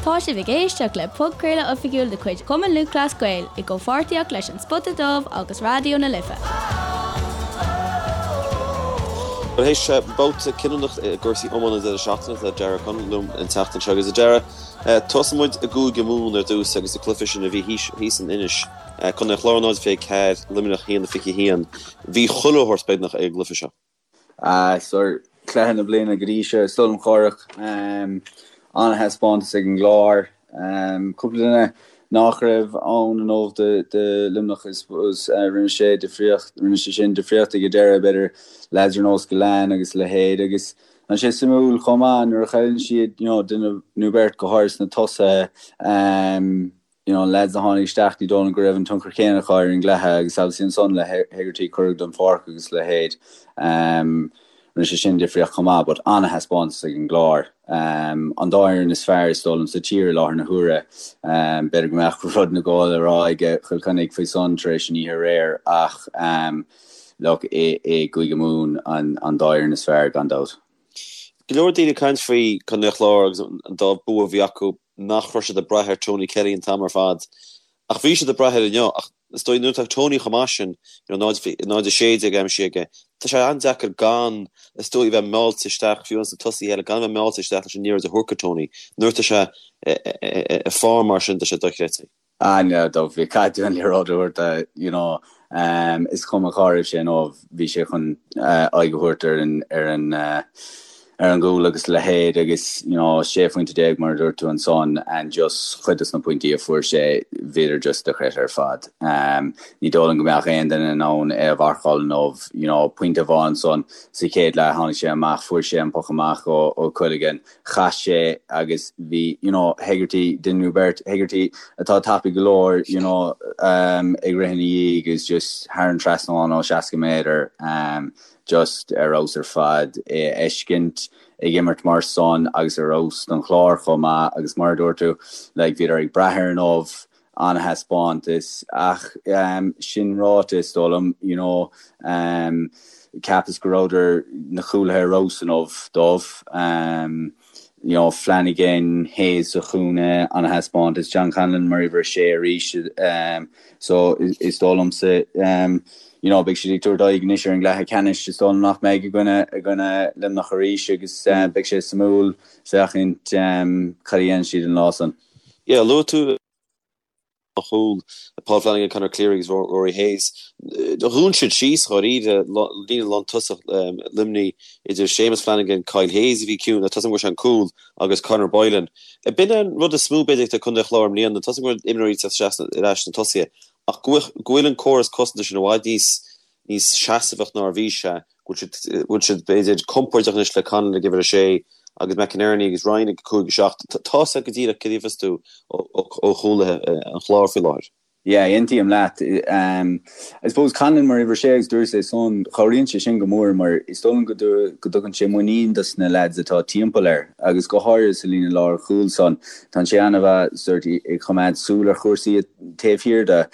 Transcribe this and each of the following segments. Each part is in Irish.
Tá sibh ag éisteacht le podchraoladh oifigiúil de chuid Chumann Lúthchleas Gael i gcomhpháirtíocht leis An Spota Dubh agus Raidió na Life. Bhuel théis babhta cinniúnach i gcúrsaí iomána an deireadh seachtaine tá Darragh O'Connell liom an tseachtain seo agus a Darragh, tosóidh muid i gCúige Mumhan ar dtús agus an cluiche sin a bhí thíos in Inis, Contae an Chláir 0-24, Luimneach 1-21. Bhí chuile shórt beagnach ag an gcluiche seo. Sure, cluiche na bliana go dtí seo, is dóigh liom Cárthach. An-thaispeántas ag an gClár. Cúpla duine nach raibh ann inniu do Luimneach, I suppose. Rinne sé difríocht, rinne sé sin difríocht ag an deireadh, b'fhéidir, lads ar nós Gillane agus a leithéid. Agus tá sé suimiúil chomh maith nuair a chailleann siad, you know, duine nó beirt, go háirithe sna tosaithe, you know, lads a tháinig isteach, ní dóigh liom go raibh an tionchar céanna acu ar an gcluiche agus obviously ansan le Hegarty cuireadh den pháirc agus a leithéid, um, rinne sé sin difríocht chomh maith but an-thaispeántas ag an gClár. Um, an dá fhoireann is fearr is dóigh liom sa tír i láthair na huaire. Um, b'fhéidir go mbeadh rud nó dhó le rá ag Cill Chainnigh faoi san tar éis an oíche aréir ach um, look, i, i gCúige Mumhan an, an dá fhoireann is fearr gan dabht. Go leor daoine ag caint faoi Contae an Chláir agus an dá bua a bhí acu nach raibh siad ag brath ar Tony Kelly an t-am ar fad. Ach bhí siad ag brath air inniu. Ach is dóigh nuair atá Tony chomh maith sin, you know, 0-16 aimsithe aige, tá sé an-deacair gan, is dóigh, bheith meáilte isteach, fiú ins na tosaithe eile, gan a bheith meáilte isteach leis an liathróid a thabhairt go Tony. Nuair atá sé i form mar sin, tá sé dochreidte. Ah no, do bhí caithfidh tú an liathróid a thabhairt do, you know, is cuma cá raibh sé inniu, bhí sé chun aghaidh a thabhairt ar an, ar an, ar an gcúl agus a leithéid agus, you know, 16 phointe mar a dúirt tú ansan and just chuid dos na pointí a fuair sé, bhíodar just dochreidte ar fad. Ní dóigh liom go mbeadh aon duine in ann é a mharcáil inniu, you know, pointe amháin ansan sa chéad leath, tháinig sé amach, fuair sé an poc amach ó, ó Quilligan, Chaith sé agus bhí, you know, Hegarty, duine nó beirt, Hegarty atá tapaidh go leor, you know, ag rith ina dhiaidh agus just thar an trasnán ó 60 méadar, just ar fheabhas ar fad é a fheiscint ag imirt mar san agus ar fheabhas don Chlár chomh maith agus mar a dúirt tú, like, bhíodar ag brath air inniu, an-thaispeántas ach sin ráite is dóigh liom you know cheapas go rabhadar na cúlaithe ar fheabhas inniu dóibh you know Flanagan, Hayes sa chúinne an-thaispeántas John Conlon mar uimhir a sé arís so is dóigh liomsa you know beidh siad ag tabhairt aghaidh anois ar an gcluiche ceannais is dóigh liom nach mbeidh i gcoinne i gcoinne Luimneach arís agus beidh sé suimiúil féachaint cad a dhéanann siad an lá san. Yeah, luaigh tú an chúl, Paul Flanagan, Conor Cleary agus Rory Hayes. Dhún siad síos dháiríre líne lántosach Luimnigh idir Séamus Flanagan, Kyle Hayes a bhí ciúin, tá a fhios agam go bhfuair sé an cúl, agus Conor Boylan. B'in an rud is mó b'fhéidir ag Contae an Chláir i mbliana, tá a fhios agam go bhfuil imreoirí ag teacht isteach ar ais sna tosaithe ach go bhfuil an córas cosanta sin i bhfad níos níos seasamhach ná a bhí sé, go bhfuil siad, b'fhéidir, compordach anois le Conlon ag uimhir a sé agus McInerney agus Ryan ag 5, 7. Tá a fhios agat go díreach cad a gheofas tú ó chúlaithe an Chláir faoi láthair. Yeah, aontaím leat. I suppose Conlon mar uimhir a sé agus dúras é san, cabhraíonn sé sin go mór mar is dóigh liom go dtugann sé muinín dos na lads atá timpeall air agus go háirithe sa líne lár chúil san. Tá sé an-mhaith sort ag choimeád súil ar chúrsaí taobh thiar de.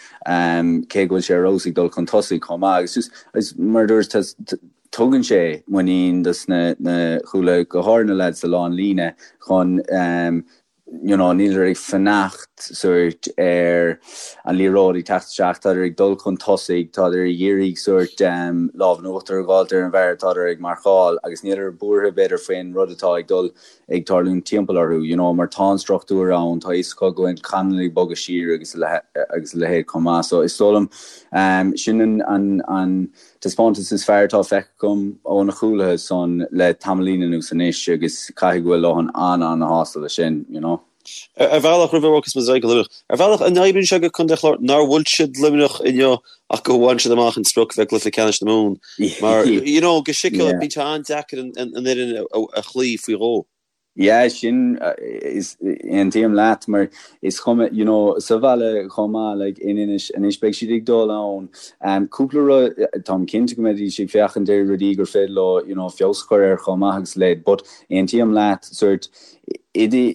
cé go bhfuil sé ar fheabhas ag dul chun tosaigh chomh maith agus just agus mar a dúirt tugann sé muinín dos na na cúlaithe go háirithe na lads sa lánlíne chun you know níleadar ag fanacht sort ar an liathróid ag teacht isteach tádar ag dul chun tosaigh tádar ag iarraidh sort lámh in uachtar a dh'fháilt ar an bhfear atádar ag marcáil agus níleadar buartha b'fhéidir faoin rud atá ag dul ag tarlúint timpeall orthu, you know, mar tá an struchtúr ann, tá a fhios acu go bhfuil Conlon ag bogadh siar agus agus a leithéid chomh maith. So is dóigh liom, sin an, an, an taispeántas is fearr atá feicthe agam ó na cúlaithe san le tamaillín anuas anois agus caithfidh go bhfuil Lohan an-an-shásta leis sin, you know. Ar bhealach, roimh a bhogas muid ar aghaidh go Luimneach, ar bhealach, an oibríonn sé go Contae an Chláir nár bhuail siad Luimneach inniu ach go bhain siad amach an sprioc bheith i gcluiche ceannais na Mumhan? Mar, you know, go siciúil, bíonn sé an-deacair an fhoireann a chloí faoi dhó. Yeah, sin, is, aontaím leat, mar is cuma, you know, sa bhaile chomh maith, like, in Inis, anois beidh siad ag dul ann, cúpla rud, táim cinnte go mbeidís ag féachaint ar rudaí gur féidir leo, you know, feabhas a chur air chomh maith agus a leithéid, but aontaím leat, sort. I do,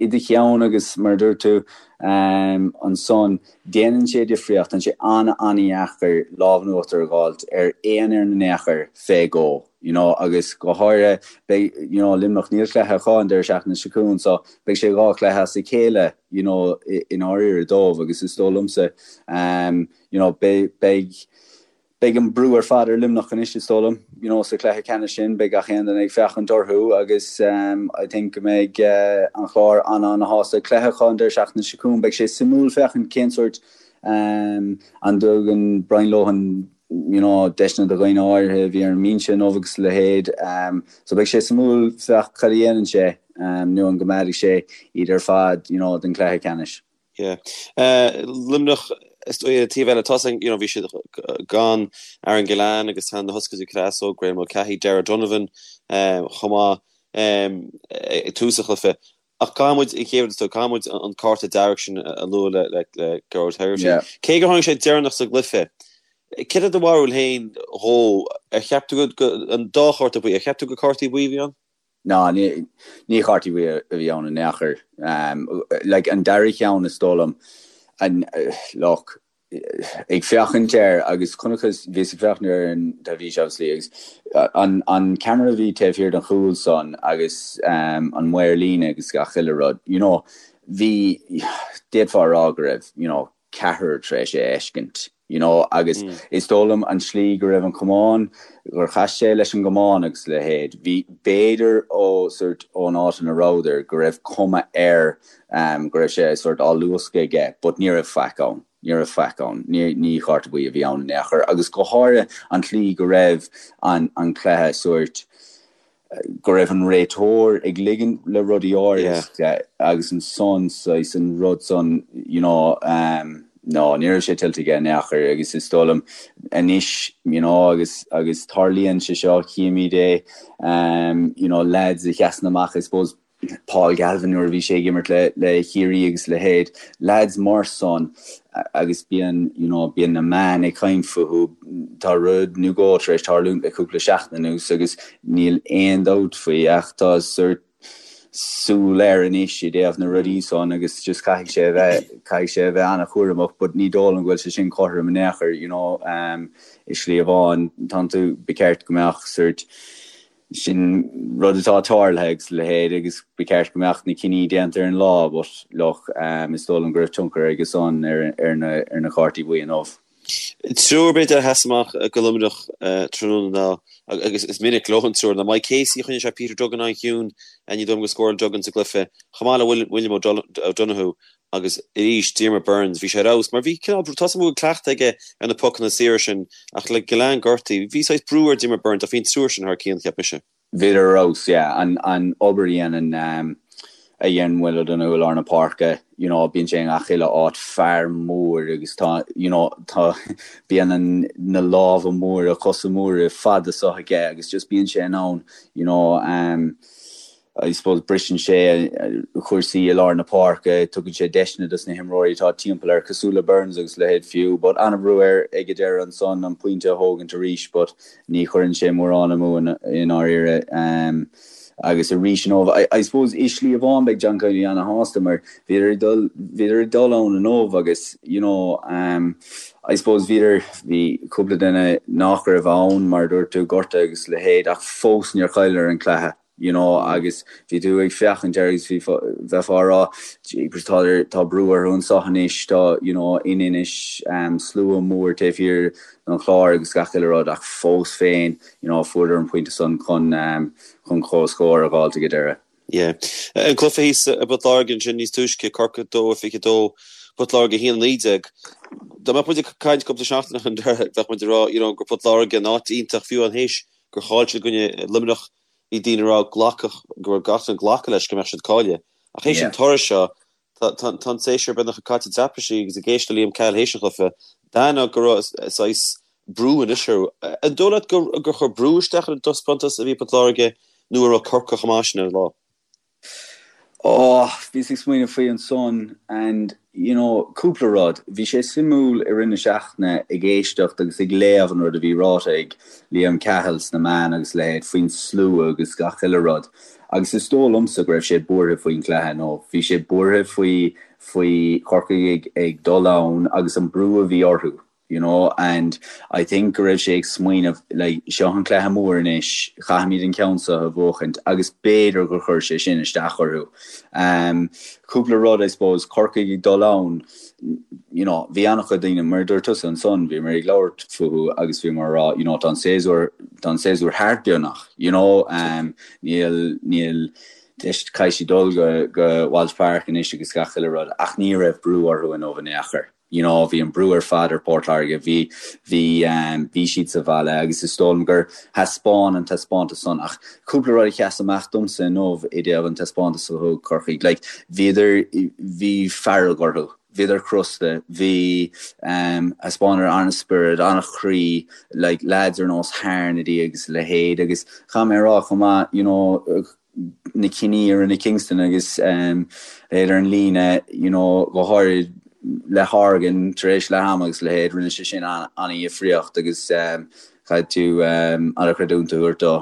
i do cheann agus mar a dúirt tú ansan, déanann sé difríocht, tá sé an-an-dheacair lámh in uachtar a dh'fháilt ar aon fhoireann in aon chor fé dhó, you know, agus go háirithe beidh, you know, Luimneach, níl cluiche acu an deireadh seachtaine seo chugainn so beidh sé 2 chluiche as a chéile, you know, i ndáiríre dóibh agus is dóigh liomsa, you know, beidh, beidh, Beidh an brú ar fad ar Luimneach anois, is dóigh liom. You know, sa chluiche ceannais sin, beidh gach aon duine ag féachaint orthu agus I think go mbeidh an Clár an-an-shásta. Cluiche acu an deireadh seachtaine seo chugainn, beidh sé suimiúil féachaint cén sórt an dtugann Brian Lohan you know, deiseanna do dhaoine áirithe a bhí ar an mbinse inniu agus a leithéid. So beidh sé suimiúil féach cad a dhéanann sé nó an gcoimeádfaidh sé iad ar fad you know, don chluiche ceannais. Yeah. Luimneach, is dóigh, ar an taobh eile, tá you know, bhí siad gan Aaron Gillane agus tá na hoscailtí Creasóg, Graeme Mulcahy, Darragh Donovan chomh maith ag tús an chluiche. Ach caithfidh muid, an chéad rud is dóigh, caithfidh muid an cárta dearg sin a lua le le le Gearóid Hegarty. Yeah. Cé gur tháinig sé deireanach sa gcluiche, céard é do bharúil féin dhó? Ar cheap tú go, an dá chárta buí, ar cheap tú gur cártaí buí a bhí ann? Ná, ní chártaí buí a bhí ann in aon chor. Like, an dara cheann is dóigh liom, an, look, ag féachaint air agus chonacthas, bhíos ag féachaint air ar an teilifís obviously agus an, an ceamara a bhí taobh thiar den chúl san agus an maor líne agus gach uile rud, you know, bhí, d'fhéadfá a rá go raibh, you know, ceathrar tar éis é a fheiscint, you know, agus is dóigh liom an tslí go raibh an camán, gur chas sé leis an gcamán agus a leithéid, bhí, b'fhéidir ó sort ón áit ina rabhadar go raibh cuma air go raibh sé sort á luascadh aige but ní raibh faic ann, ní raibh faic ann, ní, ní chárta buí a bhí ann in aon chor agus go háirithe an tslí go raibh an, an cluiche sort, go raibh an réiteoir ag ligean le rudaí áirithe agus ansan saghas an rud san you know no ní raibh sé tuillte aige in aon chor agus is dóigh liom anois you know agus agus tarlaíonn sé seo chímid é you know lads a sheasann amach I suppose Paul Galvin nuair a bhí sé ag imirt le le Ciarraí agus a leithéid, lads mar san agus bíonn you know bíonn na meáin ag caint fúthu, tá rud nó dhó tar éis tarlúint le cúpla seachtain anuas agus níl aon dabht faoi ach tá sort súil air anois i dtaobh na rudaí san agus just caithfidh sé a bheith caithfidh sé a bheith an-chúramach but ní dóigh liom go bhfuil sé sin cothrom in aon chor you know um, i slí amháin tánn tú ba cheart go mbeadh sort Sin rud atá tarlaithe agus a leithéid agus ba cheart go mbeadh na cinní déanta ar an lá but look, is dóigh liom go raibh tionchar aige san ar na cártaí buí inniu. Triúr b'fhéidir a sheas amach do Luimneach tráthnóna ná, agus is minic leo an triúr, ná Mike Casey, choinnigh sé Peter Duggan an-chiúin, ní dóigh liom gur scóráil Duggan sa gcluiche, chomh maith le William O'Donoghue Agus arís, Diarmaid Byrnes, bhí sé ar fheabhas mar bhí cineál, tá 's agam go bhfuil cleachtadh aige ar na pocanna saora sin ach le Gillane gortaithe, bhí saghas brú ar Diarmaid Byrnes ach bhí an triúr sin thar cionn, cheap mise. Bhíodar ar fheabhas, yeah. An, an obair a dhéanann, a dhéanann Will O'Donoghue i lár na páirce, you know, bíonn sé i ngach uile áit, fear mór agus tá, you know, tá, bíonn an, na lámha móra, cosa móra fada so aige agus just bíonn sé in ann, you know, I suppose briseann sé cúrsaí i lár na páirce, tugann sé deiseanna dos na himreoirí atá timpeall air, cosúil le Byrnes agus a leithéid fiú. But an-bhrú air ag an deireadh ansan an pointe a thógaint arís but ní chuireann sé mórán amú i ndáiríre. Agus arís inniu, I suppose i slí amháin beidh John Kiely ana-shásta mar bhíodar ag dul, bhíodar ag dul ann inniu agus you know I suppose bhíodar, bhí cúpla duine nach raibh ann mar a dúirt tú, gortaithe agus a leithéid ach fós níor chailleadar an cluiche. you know agus bhí tú ag féachaint air agus bhí bheifeá ag rá jeepers tá tá brú orthu anseo anois tá you know in Inis um, slua mór taobh thiar den Chlár agus gach uile rud ach fós féin you know fuaireadar an pointe san chun um, chun comhscór a dh'fháilt ag an deireadh. Yeah. An cluiche thíos i bPort Láirge ansin níos túisce, Corcaigh 2-22, Port Láirge 1-19. Dá mbeadh muid ag caint cúpla seachtain ó shin bheadh muid ag rá you know, gur Port Láirge in áit iontach fiú amháin théis gur chaill siad i gcoinne Luimneach Bhí daoine ag rá glacadh, go raibh gach duine ag glacadh leis go mbeadh siad cáilithe. Ach théis an toradh seo, tá an séasúr beagnach caite i dtraipisí agus ag éisteacht le Liam Cahill théis an chluiche, d'aithneofá go raibh saghas brú anois orthu. An dóigh leat gur chuir brú isteach ar an dtaispeántas a bhí ag Port Láirge nó an raibh Corcaigh chomh maith sin ar an lá? Oh, bhíos ag smaoineamh faoi ansan and, you know, cúpla rud. Bhí sé suimiúil i rith na seachtaine ag éisteacht agus ag léamh an rud a bhí ráite ag Liam Cahill sna meáin agus a leithéid faoin slua agus gach uile rud. Agus is dóigh liomsa go raibh sé buartha faoin chluiche nó bhí sé buartha faoi faoi Chorcaigh ag ag dul ann agus an brú a bhí orthu. you know and I think go raibh sé ag smaoineamh like seo an cluiche mór anois, caithfimid an ceann seo a bhuachaint agus b'fhéidir gur chuir sé sin isteach orthu. Um, cúpla rud I suppose, Corcaigh ag dul ann, you know, bhí an-chuid daoine, mar a dúirt tusa ansan, bhíomar ag labhairt fúthu agus bhíomar ag rá, you know, tá an séasúr, tá an séasúr thart beagnach, you know, um, níl, níl, caithfidh siad dul go, go Walsh Park anois agus gach uile rud ach ní raibh brú orthu inniu in aon chor. You know, bhí an brú ar fad ar Port Láirge, bhí, bhí, bhí siad sa bhaile agus is dóigh liom gur thaispeáin an taispeántas san ach cúpla rud a sheas amach domsa inniu i dtaobh an taispeántas a thug Corcaigh, like, bhíodar, bhí fearg orthu, bhíodar crosta, bhí, thaispeánadar an-spiorad, an-chroí, like, lads ar nós Harnedy agus a leithéid agus chaith mé a rá chomh maith, you know, na cinní a rinne Kingston agus leithéid ar an líne, you know, go háirid le Horgan tar éis leath ama agus a leithéid, rinne sé sin an-dhifríocht agus caithfidh tú an-chreidiúint a thabhairt dó.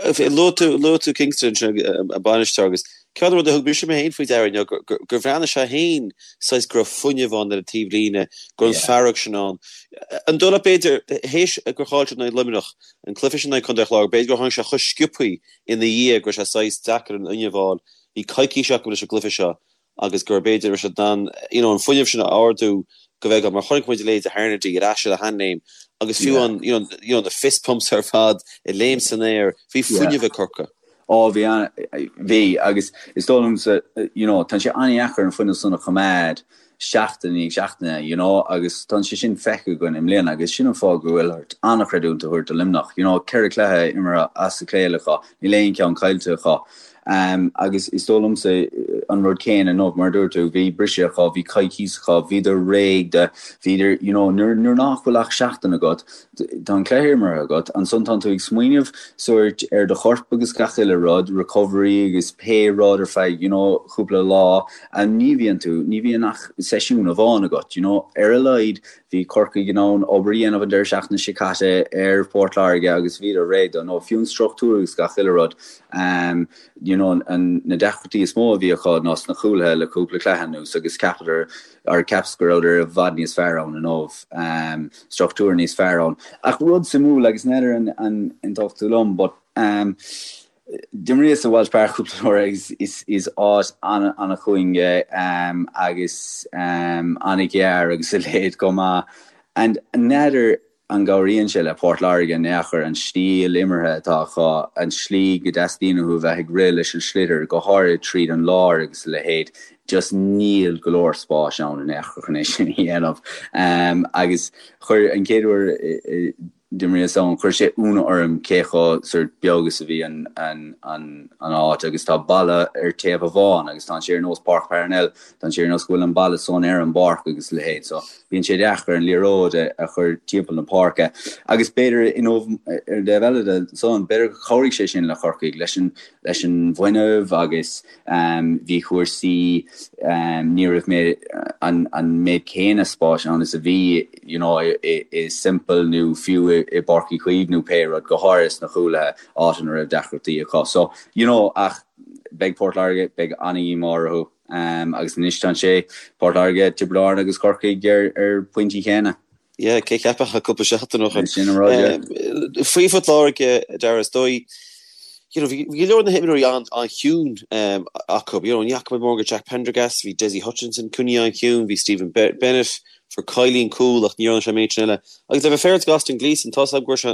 Luaigh tú, luaigh tú Kingston ansin, an bainisteoir, agus ceann de na rudaí a thug mise mé féin faoi deara inniu, gur bhreathnaigh sé féin saghas go raibh fuinneamh ann ar an taobh líne, go raibh an fearg sin ann. An dóigh leat b'fhéidir, théis gur chaill siad in aghaidh Luimneach, an cluiche sin in aghaidh Contae an Chláir, b'fhéidir gur tháinig sé chomh sciobthaí ina dhiaidh go raibh sé saghas deacair an fhuinneamh a fháil. Bhí coicís acu leis an gcluiche seo agus gur b'fhéidir raibh siad in ann you know an fuinneamh sin a ardú go bhfeiceáil mar chonaic muid a leithéid de Harnedy ar ais ar a sheanléim agus fiú an you know you know na fist pumps ar fad ag léim san aer bhí fuinneamh ag Corcaigh. Ó bhí an bhí agus is dóigh liomsa you know tá sé an-dheacair an fuinneamh san a choimeád seachtain i ndiaidh seachtaine, you know, agus tá sé sin feicthe againn i mbliana agus sin an fáth go bhfuil ort an-chreidiúint a thabhairt do Luimneach, you know, 4 cluiche imeartha as a chéile acu, níl aon cheann caillte acu. Um, agus is dóigh liomsa an rud céanna inniu, mar a dúirt tú, bhí briseadh acu, bhí coicís acu, bhíodar réidh do, bhíodar, you know, nuair, nuair nach bhfuil ach seachtain agat, tá an cluiche imeartha agat, ansan tánn tú ag smaoineamh sórt ar do chorp agus gach uile rud, recovery agus pé rud ar feadh, you know, cúpla lá, And ní bhíonn tú, ní bhíonn ach seisiún amháin agat, you know. Ar a laghad, bhí Corcaigh in ann obair a dhéanamh an deireadh seachtaine seo caite ar Phort Láirge agus bhíodar réidh dó, nó fiú an struchtúr agus gach uile rud. Um, you know, an, na deacrachtaí is mó a bhí acu ná sna cúlaithe le cúpla cluiche anuas agus cheapadar, or cheapas go rabhadar i bhfad níos fearr ann inniu, um, struchtúr níos fearr ann. Ach rud suimiúil agus n'fheadar an, an aontódh tú liom, but, um, D'imríos i Walsh Park cúpla uair agus is áit an-chúing é agus an-ghearr agus a leithéid chomh maith. And n'fheadar an gcabhraíonn sé le Port Láirge in aon chor an stíl imeartha atá acu, an tslí go dteastaíonn uathu a bheith ag rith leis an sliotar, go háirid tríd an lár agus a leithéid. Just níl go leor spáis ann in aon chor chun é sin a dhéanamh. Agus chuir an chéad uair D'imríos ann. Chuir sé ionadh orm cé chomh sort beag is a bhí an an áit agus tá balla ar taobh amháin agus tá sé ar nós Páirc Parnell, tá sé ar nós go bhfuil an balla san ar an bpáirc agus a leithéid so bíonn sé deacair an liathróid a chur timpeall na páirce. Agus b'fhéidir you know ar an dtaobh eile de san b'fhéidir gur chabhraigh sé sin le Corcaigh leis an leis an bhfuinneamh agus bhí cúrsaí ní raibh mé an méid céanna spáis ann is a bhí you know i Semple nó fiú i bPáirc Uí Chaoimh nó pé rud, go háirithe sna cúlaithe, áit ina raibh deacrachtaí acu. So, you know, ach beidh Port Láirge, beidh an-dhíomá orthu agus anois tá sé, Port Láirge, Tiobraid Árann agus Corcaigh ar ar pointí céanna. Yeah, cé cheapfadh cúpla seachtain ó shin. Sin an rud, yeah. Faoi Phort Láirge, Dara, is dóigh, you know, bhí go leor de na himreoirí an-chiúin acu. You know, ní fhaca muid mórán de Jack Prendergast, bhí Dessie Hutchinson coinnithe an-chiúin, bhí Stephen Bennett, fuair Kiely an cúl ach ní dhearna sé an méid sin eile. Agus le bheith féaráilte do Austin Gleeson, tá 's agam go bhfuair sé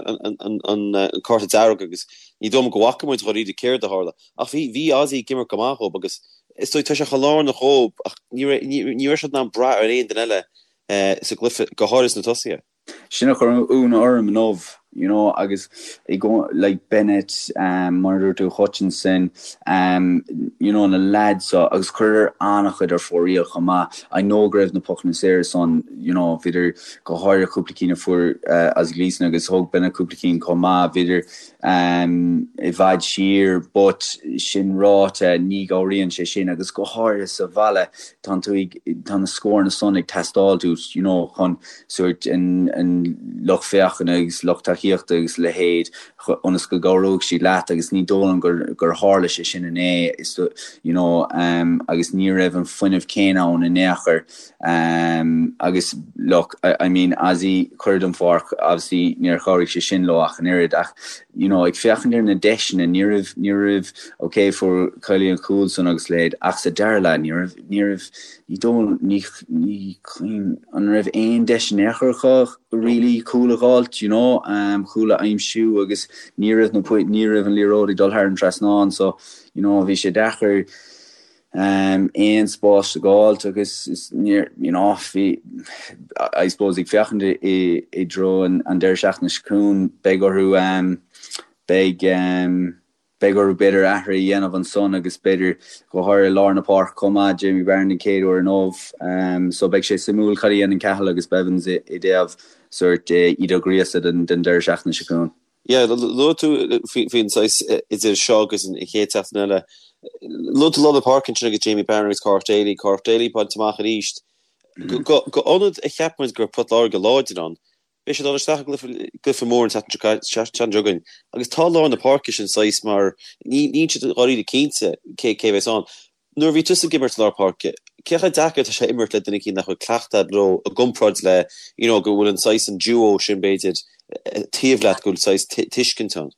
an cárta dearg agus ní dóigh liom go bhfaca muid dháiríre céard a tharla. Ach bhí, bhí Ozzy ag imirt go maith dhób agus is dóigh tá sé chomh lárnach dhób ach ní raibh, ní raibh siad in ann brath ar aon duine eile sa gcluiche, go háirithe sna tosaithe. Sin a chuir ionadh orm inniu, you know, agus i gcó, like Bennett, mar a dúirt tú, Hutchinson, you know, na lads so, agus chuireadar an-chuid ar fóraoil chomh maith. I know go raibh na pocanna saora san, you know, bhíodar, go háirithe cúpla cinn a fuair Ozzy Gleeson agus thóg Bennett cúpla cinn chomh maith, bhíodar. i bhfad siar but sin ráite ní chabhraíonn sé sin agus go háirithe sa bhaile tá tú ag tá na scóranna san ag teastáil uait you know chun sórt an an lucht féachana agus lucht tacaíochta agus a leithéid ionas go gcabhróidh siad leat agus ní dóigh liom gur gur tharla sé sin inné is you know agus ní raibh an fuinneamh céanna ann in aon chor. Agus look, I mean, Ozzy, cuireadh den pháirc, obviously níor chabhraigh sé sin leo ach an oiread ach, you know, ag féachaint ar na deiseanna, ní raibh, ní raibh, ok, fuair Kiely an cúl san agus a leithéid ach sa dara leath ní raibh, ní raibh, ní dóigh, ní, ní cuimhin, an raibh aon deis in aon chor acu really cúl a dh'fháilt, you know, cúl a aimsiú agus ní raibh na, ní raibh an liathróid ag dul thar an trasnán so, you know, bhí sé deacair, aon spás a dh'fháilt agus is níor, you know, bhí, I suppose ag féachaint i dtreo an deireadh seachtaine seo chugainn, beidh orthu, beidh, beidh orthu b'fhéidir athrú a dhéanamh ansan agus b'fhéidir go háirithe i lár na páirce chomh maith, Jamie Barron den chéad uair inniu. So beidh sé suimiúil cad a dhéanann Cathal agus Bevans i dtaobh sórt iad a ghríosadh don deireadh seachtaine seo chugainn. Yeah, luaigh tú faoin saghas idir seo agus an chéad seachtain eile. Luaigh tú lár na páirce ansin agus Jamie Barron agus Cárthach Daly, Cárthach Daly bainte amach arís. Go ionad a cheap muid go raibh Port Láirge láidir ann, beidh siad ag dul isteach i gcluiche mór an tseachtain seo chugainn agus tá lár na páirce sin saghas mar níl siad dháiríre cinnte cé a bheas ann. Nuair a bhí tusa ag imirt i lár páirce, cé chomh deacair atá sé imirt le duine eicínt nach bhfuil cleachtadh agat leo i gcomparáid le you know go bhfuil an saghas an duo sin b'fhéidir taobh leat go bhfuil saghas tuiscint ann?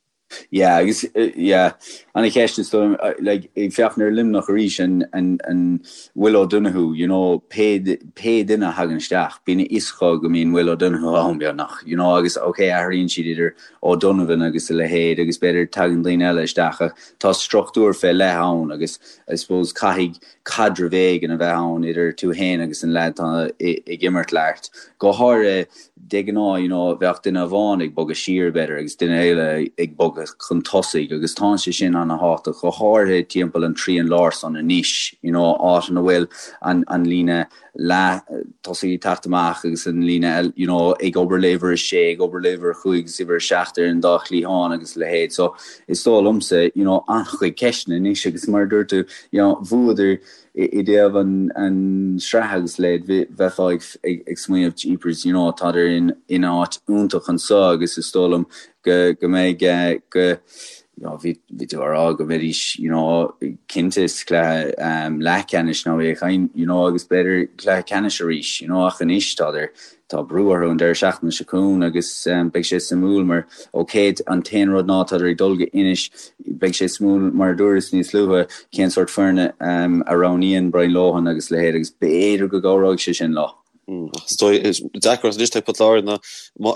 Yeah agus yeah ana cheist is dóigh like ag féachaint ar Luimneach arís an an an Will O'Donoghue you know pé pé duine a thagann isteach bíonn a fhios acu go mbíonn Will O'Donoghue ann beagnach you know agus ok athraíonn siad idir O'Donovan agus a leithéid agus b'fhéidir tagann daoine eile isteach ach tá struchtúr fé leith ann agus I suppose caithfidh caidreamh éigin a bheith ann idir tú fhéin agus an leaid atá ag imirt leat. Go háirithe de ghnáth you know bheadh duine amháin ag bogadh siar b'fhéidir agus duine eile ag bogadh chun tosaigh agus tá sé sin ana-thábhachtach go háirithe timpeall an trian láir san anois you know áit ina bhfuil an an líne leath tosaigh ag teacht amach agus an líne eile you know ag obair le uimhir a sé, ag obair le uimhir a chúig agus uimhir a seacht ar an dá chliathán agus a leithéid. So is dóigh liomsa you know an-chuid ceisteanna anois agus mar a dúirt tú you know bhuadar i dtaobh an an sraith agus a leithéid bheifeá ag ag ag smaoineamh jeepers you know tádar in in áit iontach anso agus is dóigh liom go go mbeidh go you know, bhí bhí tú á rá go mbeidís, you know, cinnte sa chluiche um, leathcheannais nó é chain, you know, agus b'fhéidir cluiche ceannais arís, you know, ach anois tá tá brú orthu an deireadh seachtaine seo chugainn agus um, beidh sé suimiúil mar ok an t-aon rud ná tádar ag dul go Inis beidh sé suimiúil mar a dúras níos luaithe cén sórt foirne um, a roghnaíonn Brian Lohan agus a leithéid agus b'fhéidir go gcabhróidh sé sin leo. Is dóigh, is deacracht anois ag Port Láirge ná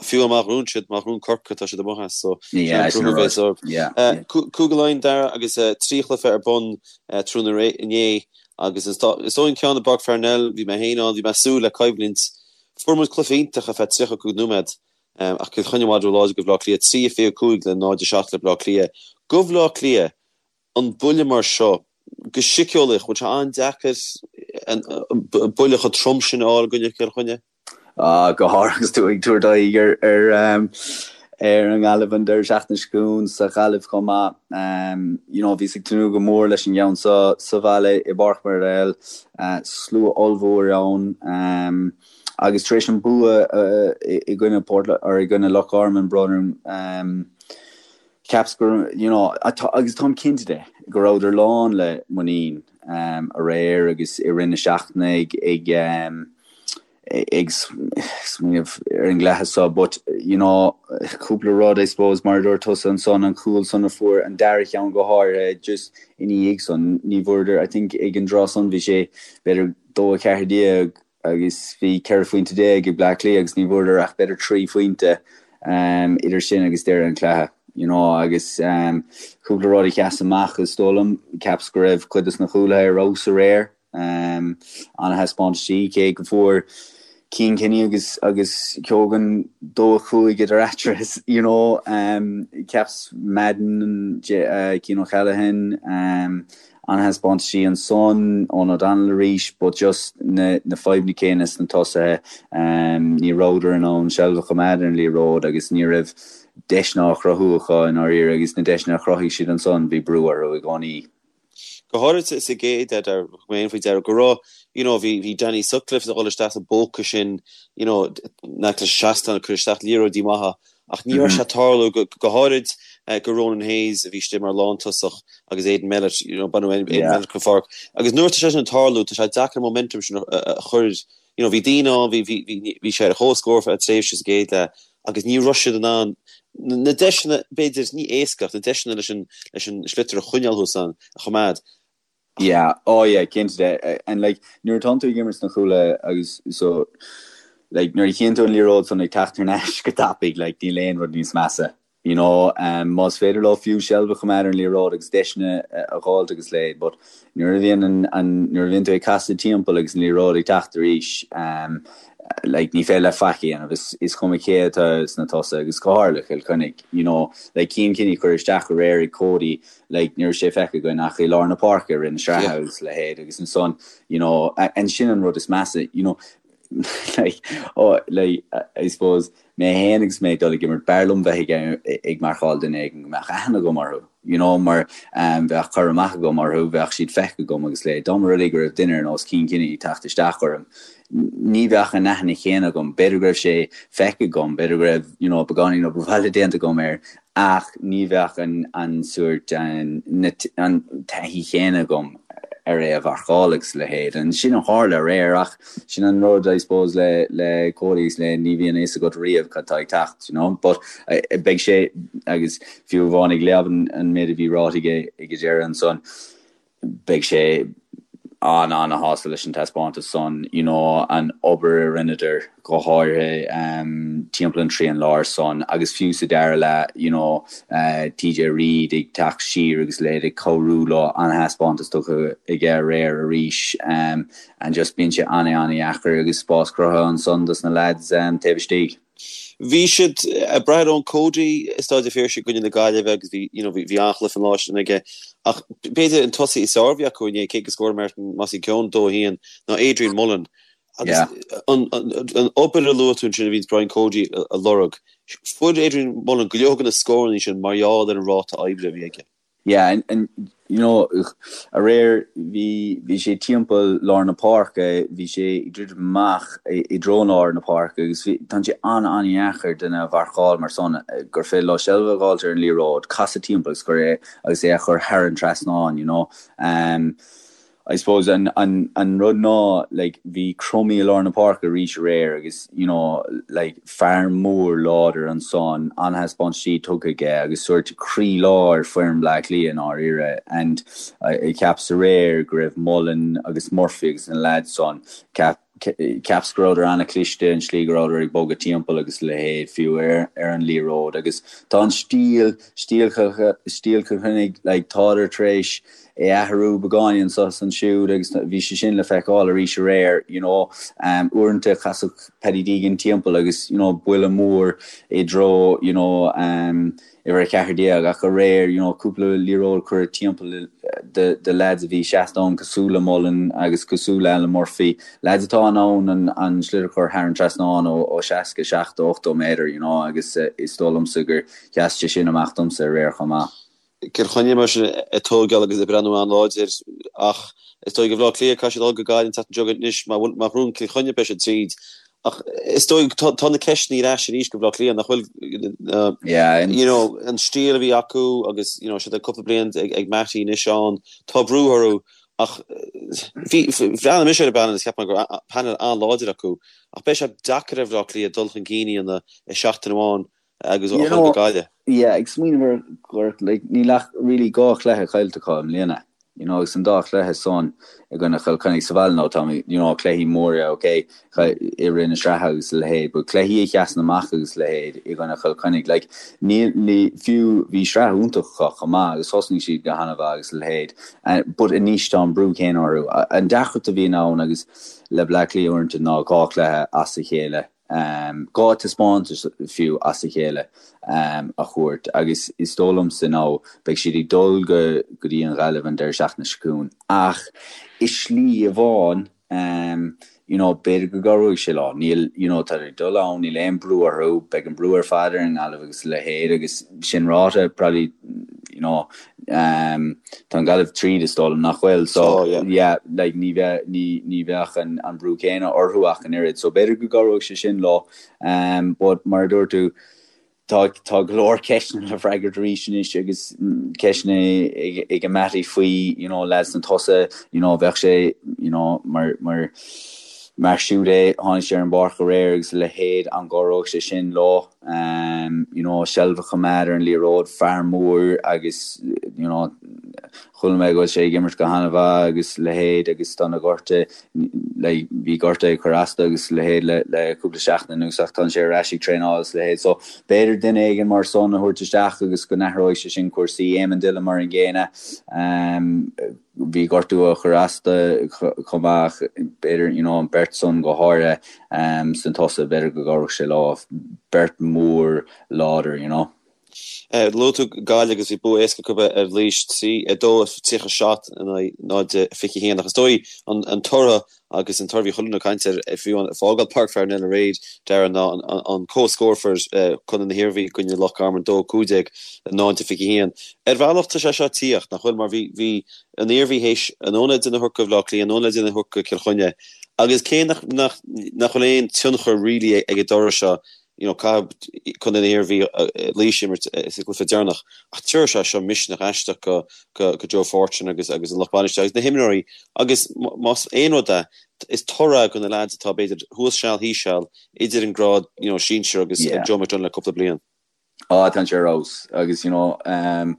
fiú má ghnóthaíonn siad, má ghnóthaíonn Corcaigh tá siad amuigh as so Yeah, sin an rud. Yeah, yeah. Cúige Laighean Dara agus 3 chluiche ar bun tráthnóna inné agus is dóigh an ceann i bPáirc Pharnell, bhí mé féin ann, bhí mé ag súil le coimhlint. Fuair muid cluiche iontach ar feadh 35 nóiméad ach Cill Chainnigh i bhfad róláidir do Bhaile Átha Cliath, 3-25 le 0-7 le Baile Átha Cliath. Do Bhaile Átha Cliath, an buille mar seo, go síceolaíoch, bhfuil sé an-deacair an buille chomh trom sin a fháil i gcoinne Chill Chainnigh? Ah, go háirithe agus tú ag tabhairt aghaidh ar ar ar an nGaillimh an deireadh seachtaine seo chugainn sa Ghaillimh chomh maith. You know, bhíos ag tnúth go mór leis an gceann seo sa bhaile i bPáirc Murtall, slua ollmhór ann agus tar éis an bua i gcoinne Port or i gcoinne Loch Garman, brón orm, Cheapas go, you know, agus táim cinnte de, go rabhadar lán le muinín aréir agus i rith na seachtaine ag ag ag smaoineamh ar an gcluiche seo but, you know, cúpla rud I suppose mar a dúirt tusa ansan, an cúl san a fuair an dara cheann go háirithe just ina dhiaidh san, ní bhfuaireadar, I think ag an dtráth san bhí sé b'fhéidir 2-14 agus bhí 14 phointe ag Bleá Cliath agus ní bhfuaireadar ach b'fhéidir 3 phointe idir sin agus deireadh an chluiche you know agus cúpla rud a sheas amach is dóigh liom, cheapas go raibh cuid des na cúlaithe ar fheabhas aréir, ana-thaispeántaisí cé go bhfuair Cian Kenny agus agus Keoghan 2-5 idir eatarthu you know cheapas Madden, Cian O'Callaghan, An-thaispeántaisí ansan Eoghan O'Donnell arís but just na na fadhbanna céanna sna tosaithe. Ní rabhadar in ann seilbh a choimeád ar an liathróid agus ní raibh. deiseanna á chruthú acu i ndáiríre agus na deiseanna a chruthaigh siad ansan, bhí brú orthu i gcónaí. Go háirid sa gcéad leath, thug mé féin faoi deara go raibh, you know, bhí, bhí Danny Sutcliffe ag dul isteach sa bpóca sin, you know, in aice leis an seastán ag cur isteach liathróidí maithe ach ní raibh sé ag tarlú, go, go háirid go Ronan Hayes a bhí istigh mar lántosach agus Aidan Mellett, you know, baineadh Aidan Mellett den pháirc. Agus nuair atá sé sin ag tarlú, tá sé deacair an momentum sin a, a chur, you know, bhí daoine ann, bhí, bhí, bhí, bhí sé ar chomhscór feadh tréimhse sa gcéad leath agus ní raibh siad in ann na deiseanna, b'fhéidir, ní éasca ach na deiseanna leis an, leis an sliotar a choinneáil thuas ann, a choimeád. Yeah, oh yeah, cinnte de. And like, nuair atánn tú ag imirt sna cúlaithe agus so, like, nuair a chíonn tú an liathróid san ag teacht thar n-ais go tapaidh, like, níl aon rud níos measa. You know, um, más féidir leo fiú seilbh a choimeád ar an liathróid agus deiseanna a dh'fháilt agus a leithéid, but nuair a bhíonn an, an, nuair a bhíonn tú ag casadh timpeall agus an liathróid ag teacht arís, um, like, ní féidir leat faic a dhéanamh, is, is cuma cé atá sna tosaithe agus go háirithe le Cill Chainnigh, you know, like, Cian Kenny curtha isteach aréir ag Cody, like, ní raibh sé feicthe againn ach i lár na páirce i rith na sraithe agus a leithéid agus ansan, you know, and sin an rud is measa, you know, like, oh, like, I suppose, mé féin agus mé ag dul ag imirt, b'fhearr liom bheith ag ag marcáil duine éigin go mbeadh aithne agam orthu, you know, mar bheadh cur amach agam orthu, bheadh siad feicthe agam agus le, dá mba rud é go raibh duine ar nós Cian Kenny ag teacht isteach orm, ní bheadh an aithne chéanna agam, b'fhéidir go raibh sé feicthe agam, b'fhéidir go raibh, you know, beagáinín obair bhaile déanta agam air, ach ní bheadh an an sórt an an taithí chéanna agam ar é a mharcáil agus a leithéid. And sin a tharla aréir ach sin an rud I suppose le le Cody agus le ní bhíonn a fhios agat riamh cad tá ag teacht, you know. But beidh sé agus fiú amháin ag léamh an an méid a bhí ráite aige ag an deireadh ansan, beidh sé an-an-shásta leis an taispeántas san, you know, an obair a rinneadar, go háirithe timpeall an trian láir san agus fiú sa dara leath, you know, TJ Reid ag teacht siar agus a leithéid ag cabhrú leo, an-thaispeántas tugtha aige aréir arís and just bíonn sé an-an-dheacair agus spás cruthaithe ansan dos na lads taobh istigh. Bhí siad ag brath ar Eoin Cody i Staid an Phiarsaigh i gcoinne na Gaillimhe agus bhí, you know, bhí an-chluiche an lá sin aige. Ach b'fhéidir an tosaí is fearr a bhí acu inné, cé gur scór Martin Mossy Keoghan 2-1, ná Adrian Mullen. Agus an obair a luaigh tú ansin a bhíonns Brian Cody a lorg, fuair Adrian Mullen go leor de na scóranna sin mar gheall ar an ráta oibre a bhí aige. Yeah, and, and you know, aréir bhí, bhí sé timpeall lár na páirce, bhí sé ag druidim amach i, i dtreo lár na páirce agus bhí, tá sé an-an-dheacair duine a mharcáil mar san, gur féidir leo seilbh a dh'fháilt ar an liathróid, casadh timpeall agus cur é, agus é a chur thar an trasnán, you know. Um, I suppose an an an rud ná like bhí Crummey i lár na páirce arís aréir agus you know like fear mór láidir ansan, an-thaispeántaisí tugtha aige agus sórt croí lár foireann Bleá Cliath i ndáiríre and I cheapas aréir go raibh Mullen agus Murphy agus na lads san cheap cheapas go rabhadar an-chliste an slí go rabhadar ag bogadh timpeall agus a leithéid fiú ar ar an liathróid agus tá an stíl stíl stíl Chill Chainnigh like tádar tar éis é athrú beagáinín anso is ansiúd agus bhí sé sin le feiceáil arís aréir, you know. Uaireanta chasfadh Paddy Deegan timpeall agus, you know, buille mór i dtreo, you know, uimhir 14 ach aréir, you know, cúpla liathróid curtha timpeall do do lads a bhí seasta ann cosúil le Mullen agus cosúil le Alan Murphy, lads atá in ann an an sliotar a chur thar an trasnán ó ó 60, 70, 80 méadar, you know, agus is dóigh liomsa gur sheas sé sin amach domsa aréir chomh maith. Cill Chainnigh mar sin ag tógáil agus ag breathnú an-láidir ach is dóigh do Bhaile Átha Cliath caithfidh siad dul go Gaillimh an tseachtain seo chugainn anois má bhuann Cill Chainnigh beidh siad tríd ach is dóigh tá na ceisteanna ar ais arís do Bhaile Átha Cliath nach bhfuil you know an stíl a bhí acu agus you know siad ag cúpla bliain ag ag Mattie anois ann tá brú orthu ach bhí bhreathnaigh mise ar an bpainéal is cheap mé go raibh painéal an-láidir acu ach beidh sé deacair ar Bhaile Átha Cliath dul chun cinn a dhéanamh i seachtain amháin agus a dhul go Gaillimh. Yeah, ag smaoineamh ar gur like níl ach really 2 chluiche caillte acu i mbliana, you know, agus an dá chluiche san i gcoinne Chill Chainnigh sa bhaile now tá you know cluichí móra ok i rith na sraithe agus a leithéid but cluichí a sheasann amach agus a leithéid i gcoinne Chill Chainnigh like níl ní fiú bhí sraith iontach acu chomh maith agus thosnaigh siad go han-mhaith agus a leithéid but anois tá an brú céanna orthu. An deacracht a bhíonn ann agus le Bleá Cliath uaireanta ná 2 chluiche as a chéile 2 taispeántas fiú as a chéile a thabhairt agus is dóigh liomsa now beidh siad ag dul go go dtí an Ghaillimh an deireadh seachtaine seo chugainn ach i slí amháin. You know, b'fhéidir go gcabhróidh sé leo. Níl, you know, tá ag dul ann, níl aon brú orthu, beidh an brú ar fad ar an nGaillimh agus a leithéid agus sin ráite, probably, you know, um, tá an Ghaillimh tríd is dóigh liom nach bhfuil, so, oh, yeah. yeah, like, ní bheadh, ní, ní bheadh an, an brú céanna orthu ach an oiread, so b'fhéidir go gcabhróidh sé sin leo, um, but mar a dúirt tú, Tá tá go leor ceisteanna le freagairt arís anois agus ceisteanna ag Mattie faoi you know lads na tosaithe you know bheadh sé you know mar mar mar siúd é tháinig sé ar an bpáirc aréir agus a leithéid an gcabhródh sé sin leo um you know seilbh a choimeád ar an liathróid fear mór agus you know Chuala mé go bhfuil sé ag imirt go han-mhaith agus a leithéid agus tá na gortuithe, like, bhí gortuithe ag cur as dó agus a leithéid le, le cúpla seachtain anuas ach tá sé ar ais ag traenáil agus a leithéid. So, b'fhéidir duine éigin mar san a thabhairt isteach agus go n-athróidh sé sin cúrsaí. Eamon Dillon mar an gcéanna, um, bhí gortú á chur as dó chomh maith ach b'fhéidir, you know, an beirt san go háirithe, um, sna tosaithe, b'fhéidir go gcabhródh sé leo. Beirt mhór láidir, you know. Luaigh tú Gaillimh agus bhí bua éasca acu ar Laois 3, 2, 37 in aghaidh 0, 21 ach is dóigh an toradh agus an toradh a bhí chuile dhuine ag caint air fiú ag fágáil Páirc Pharnell aréir Darragh ná an comhscór a fuair Contae na hIarmhí i gcoinne Loch Garman 2, 15 0, 21. Ar bhealach tá sé seo ag tíocht, nach bhfuil, mar bhí bhí an Iarmhí théis anonn le déanamh a thabhairt do Bhaile Átha Cliath, anonn le déanamh a thabhairt do Chill Chainnigh agus cé nach nach nach bhfuil aon tionchar really ag an dtoradh seo you know, caithfidh Contae na hIarmhí Laois a imirt sa gcluiche deireanach ach tabharfaidh sé seo misneach aisteach go, go, go Joe Fortune agus, agus an lucht bainistithe agus na himreoirí agus más aon rud é, is toradh do na lads atá b'fhéidir thuas seal thíos seal idir an grád you know, sinsir agus yeah. Joe McDonagh le cúpla bliain. Á, tá sé ar fheabhas agus you know, um,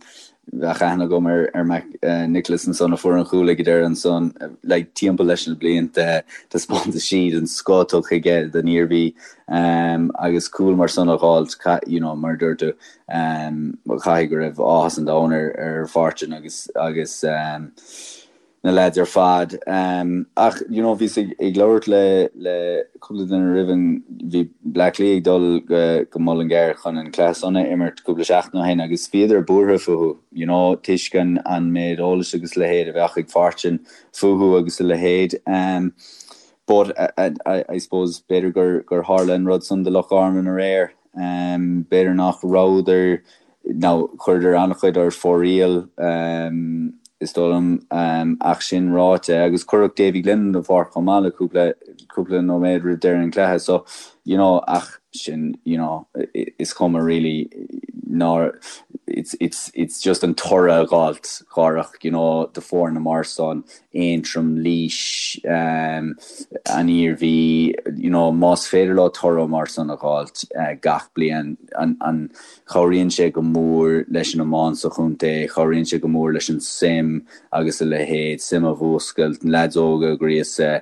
Bheadh aithne agam ar ar Mac Nicholas ansan a fuair an chúl ag an deireadh ansan like timpeall leis na blianta taispeántaisí den scoth tugtha aige don Iarmhí agus cúl mar san a dh'fháilt you know mar a dúirt tú caithfidh go raibh áthas an domhain ar ar Fortune agus agus na leaids ar fad. Ach you know bhíos ag ag labhairt le le cúpla duine roimh an bhí Bleá Cliath ag dul go go Mullingar chun an cluiche san a imirt cúpla seachtain ó shin agus bhíodar buartha fúthu you know toisc an an méid eolais agus a leithéid a bheadh ag Fortune fúthu agus a leithéid. But I I I suppose b'fhéidir gur gur tharla an rud san do Loch Garman aréir. B'fhéidir nach rabhadar Now, chuireadar an-chuid ar fóraoil, is dóigh liom, ach sin ráite, agus cuireadh Davy Glennon den pháirc chomh maith le cúpla, cúpla nóiméad roimh deireadh an chluiche, so, you know, ach sin, you know, is cuma really ná, it's, it's, it's just an toradh a dh'fháilt, dháireach, you know, do foirne mar san, Aontroim, Laois, an Iarmhí, you know, más féidir leo toradh mar san a dh'fháilt gach bliain, an, an, Cabhraíonn sé go mór leis an iomáint sa chontae, cabhraíonn sé go mór leis an suim agus a leithéid, suim a mhúscailt, na leaids óga a ghríosadh,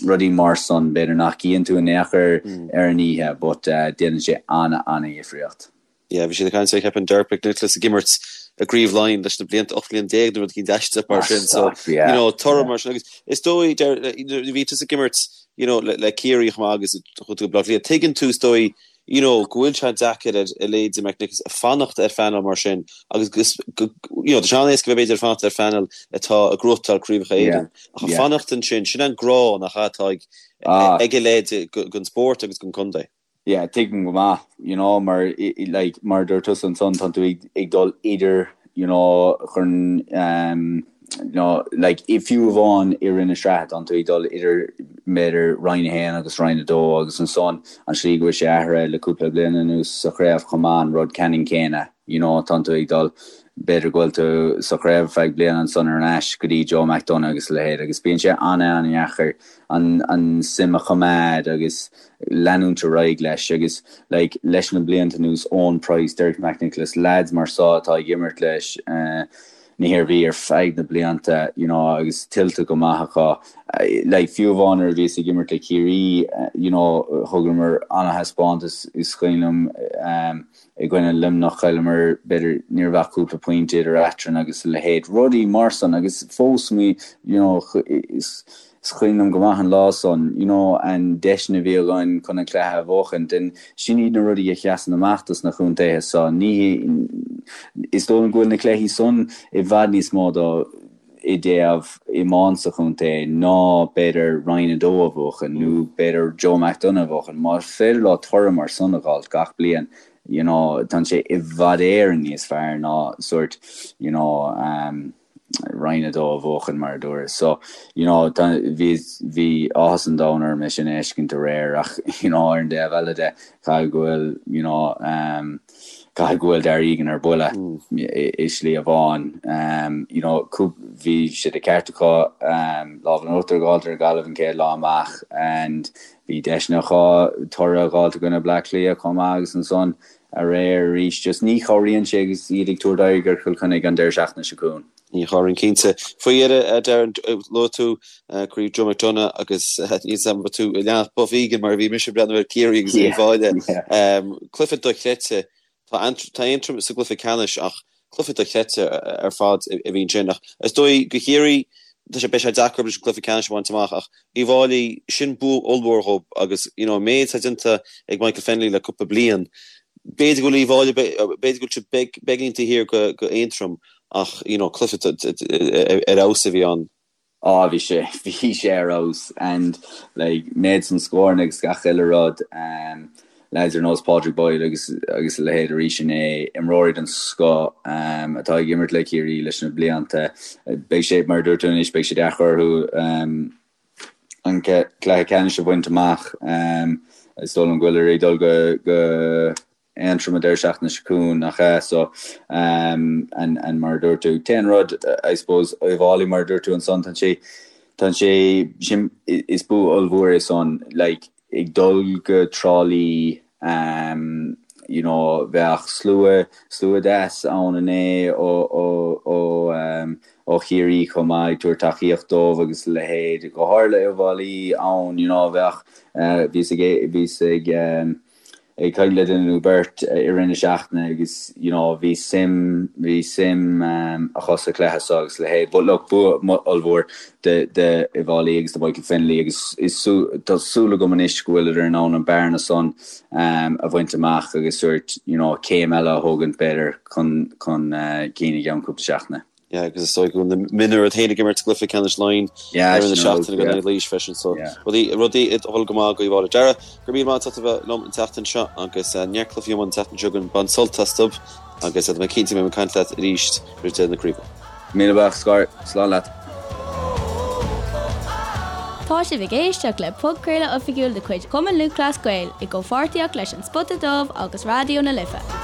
rudaí mar san, b'fhéidir nach gcíonn tú in aon chor ar an oíche but déanann sé ana-ana-dhifríocht. Yeah, bhí siad ag caint ar, cheapfainn, Derek McNicholas ag imirt i gCraobh Laighean leis na blianta, 18 mbliana nó rud eicínt aisteach mar sin, so, you know, toradh mar sin agus is dóigh, bhí tusa ag imirt, you know, le Ciarraí chomh maith agus chuaigh tú go Baile Átha Cliath, tuigeann tú is dóigh, you know, go bhfuil sé deacair ar a leithéidí McNicholas fanacht ar phainéal mar sin agus go, you know, tá sé an-éasca bheith b'fhéidir ag fanacht ar phainéal atá ag gnóthachtáil Craobhacha Éireann ach ag fanacht ansin, sin an grá nach ea atá ag ag a leithéid don spórt agus don contae. Yeah, tuigim go maith, you know, mar, like, mar a dúirt tusa ansan, tá tú ag, ag dul idir, you know, chun, um, you know, like, fiú amháin i rith na sraithe, tá tú ag dul idir, b'fhéidir, Roinn 1 agus Roinn 2 agus ansan an slí go bhfuil sé athraithe le cúpla bliain anuas sa chraobh chomh maith, an rud ceannann céanna, you know, tá tú ag dul, b'fhéidir go bhfuil tú sa chraobh ar feadh bliana ansan ar ais go dtí Joe McDonagh agus a leithéid agus bíonn sé an-an-dheacair an, an suim a choimeád agus leanúint ar aghaidh leis agus like leis na blianta anuas, Eoin Price, Derek McNicholas, lads mar so atá ag imirt leis na hIarmhí ar feadh na blianta you know agus tuillte go maith acu. Like fiú amháin nuair a bhíos ag imirt le Ciarraí you know thugamar ana-thaispeántas is cuimhin liom i gcoinne Luimneach chailleamar b'fhéidir ní raibh ach cúpla pointe idir eadrainn agus a leithéid rudaí mar san agus fós mé you know is Is cuimhin liom go maith an lá san, you know, an deiseanna a bhí againn chun an cluiche a bhuachaint and sin iad na rudaí a sheasann amach dos na contaetha so. Ní, is dóigh liom go bhfuil na cluichí san i bhfad níos mó do. i dtaobh iomáint sa chontae ná b'fhéidir Roinn 2 a bhuachan nó b'fhéidir Joe McDonagh a bhuachan. Más féidir leo toradh mar san a dh'fháilt gach bliain, you know, tá sé i bhfad Éireann níos fearr ná sórt, you know, um, Roinn 2 a bhuachan mar a dúras. So, you know, tá, bhí, bhí áthas an domhain orm é sin a fheiscint aréir ach, you know, ar an dtaobh eile de, caithfidh go bhfuil, you know, um, caithfidh go bhfuil Darragh Egan ar buile i slí amháin. Um, you know, bhí sé de ceart acu um, lámh in uachtar a dh'fháilt ar Ghaillimh an chéad lá amach and bhí deiseanna acu toradh a dh'fháilt i gcoinne Bleá Cliath chomh maith agus ansan aréir arís just ní chabhraíonn sé agus iad ag tabhairt aghaidh ar Chill Chainnigh an deireadh seachtaine seo chugainn. Ní chabhraíonn cinnte. Faoi dheireadh, Darren, luaigh tú Craobh Joe McDonagh agus níl 's agam an raibh tú ag leanacht Buff Egan mar a bhí mise ag breathnú ar Ciarraí agus Uíbh Fhailí. Cluiche dochreidte. Tá Aontroim sa gcluiche ceannais ach cluiche dochreidte ar fad a bhí ansin. Ach is dóigh do Chiarraí, tá sé, beidh sé deacair leis an cluiche ceannais a bhaint amach ach Uíbh Fhailí, sin bua ollmhór dhób agus you know an méid atá déanta ag Michael Fennelly le cúpla bliain, b'fhéidir go bhfuil Uíbh Fhailí, b'fhéidir go bhfuil siad beagáinín taobh thiar go Aontroim ach you know cluiche ar fheabhas a bhí ann. Á bhí sé, bhí sé ar fheabhas and like méid san scóranna agus gach uile rud um, lads ar nós Padraig Boyle agus agus a leithéid arís inné, imreoirí den scoth um, atá ag imirt le Ciarraí leis na blianta. Beidh sé, mar a dúirt tú anois, beidh sé deacair orthu um, an cluiche ceannais a bhaint amach. Um, is dóigh liom go bhfuil ag dul go, go Aontroim an deireadh seachtaine seo chugainn, nach ea? So, um, and, and mar a dúirt tú, t-aon rud, I suppose, Uíbh Fhailí, mar a dúirt tú ansan, tá sé, tá sé, sin, is bua ollmhór é san, like, ag dul go Trá Lí, um, you know, bheadh slua, slua deas ann inné ó, ó, ó, um, ó Chiarraí chomh maith, ag tabhairt tacaíocht dóibh agus a leithéid, go háirithe le Uíbh Fhailí ann, you know, bheadh, uh, bhíos ag, bhíos ag, um, ag caint le duine nó beirt i rith na seachtaine agus you know bhí suim, bhí suim acu sa chluiche seo agus a leithéid. But look, bua ollmhór do Uíbh Fhailí agus do Michael Fennelly agus is tá súil agam anois go bhfuileadar in ann an bearna san a bhaint amach agus sórt you know céim eile a thógaint b'fhéidir chun chun cinn i gceann cúpla seachtaine. Yeah, agus is dóigh go bhfuil na mionúir iad féin ag imirt sa gcluiche ceannais Laighean Yeah, ar an sin seachtain rud, in yeah. aghaidh Laois freisin so Yeah. rudaí rudaí ag dul go maith do Uíbh Fhailí. Darragh, go raibh míle maith agat as a bheith liom an tseachtain seo agus neart cluichí iomána an tseachtain seo chugainn, bain sult astu agus tá mé cinnte go mbeidh mé ag caint leat arís roimh deireadh na craoibhe. Míle buíochas, Scor, slán leat. Tá sibh ag éisteacht le podchraoladh oifigiúil de chuid Chumann Lúthchleas Gael i gcomhpháirtíocht leis An Spota Dubh agus Raidió na Life.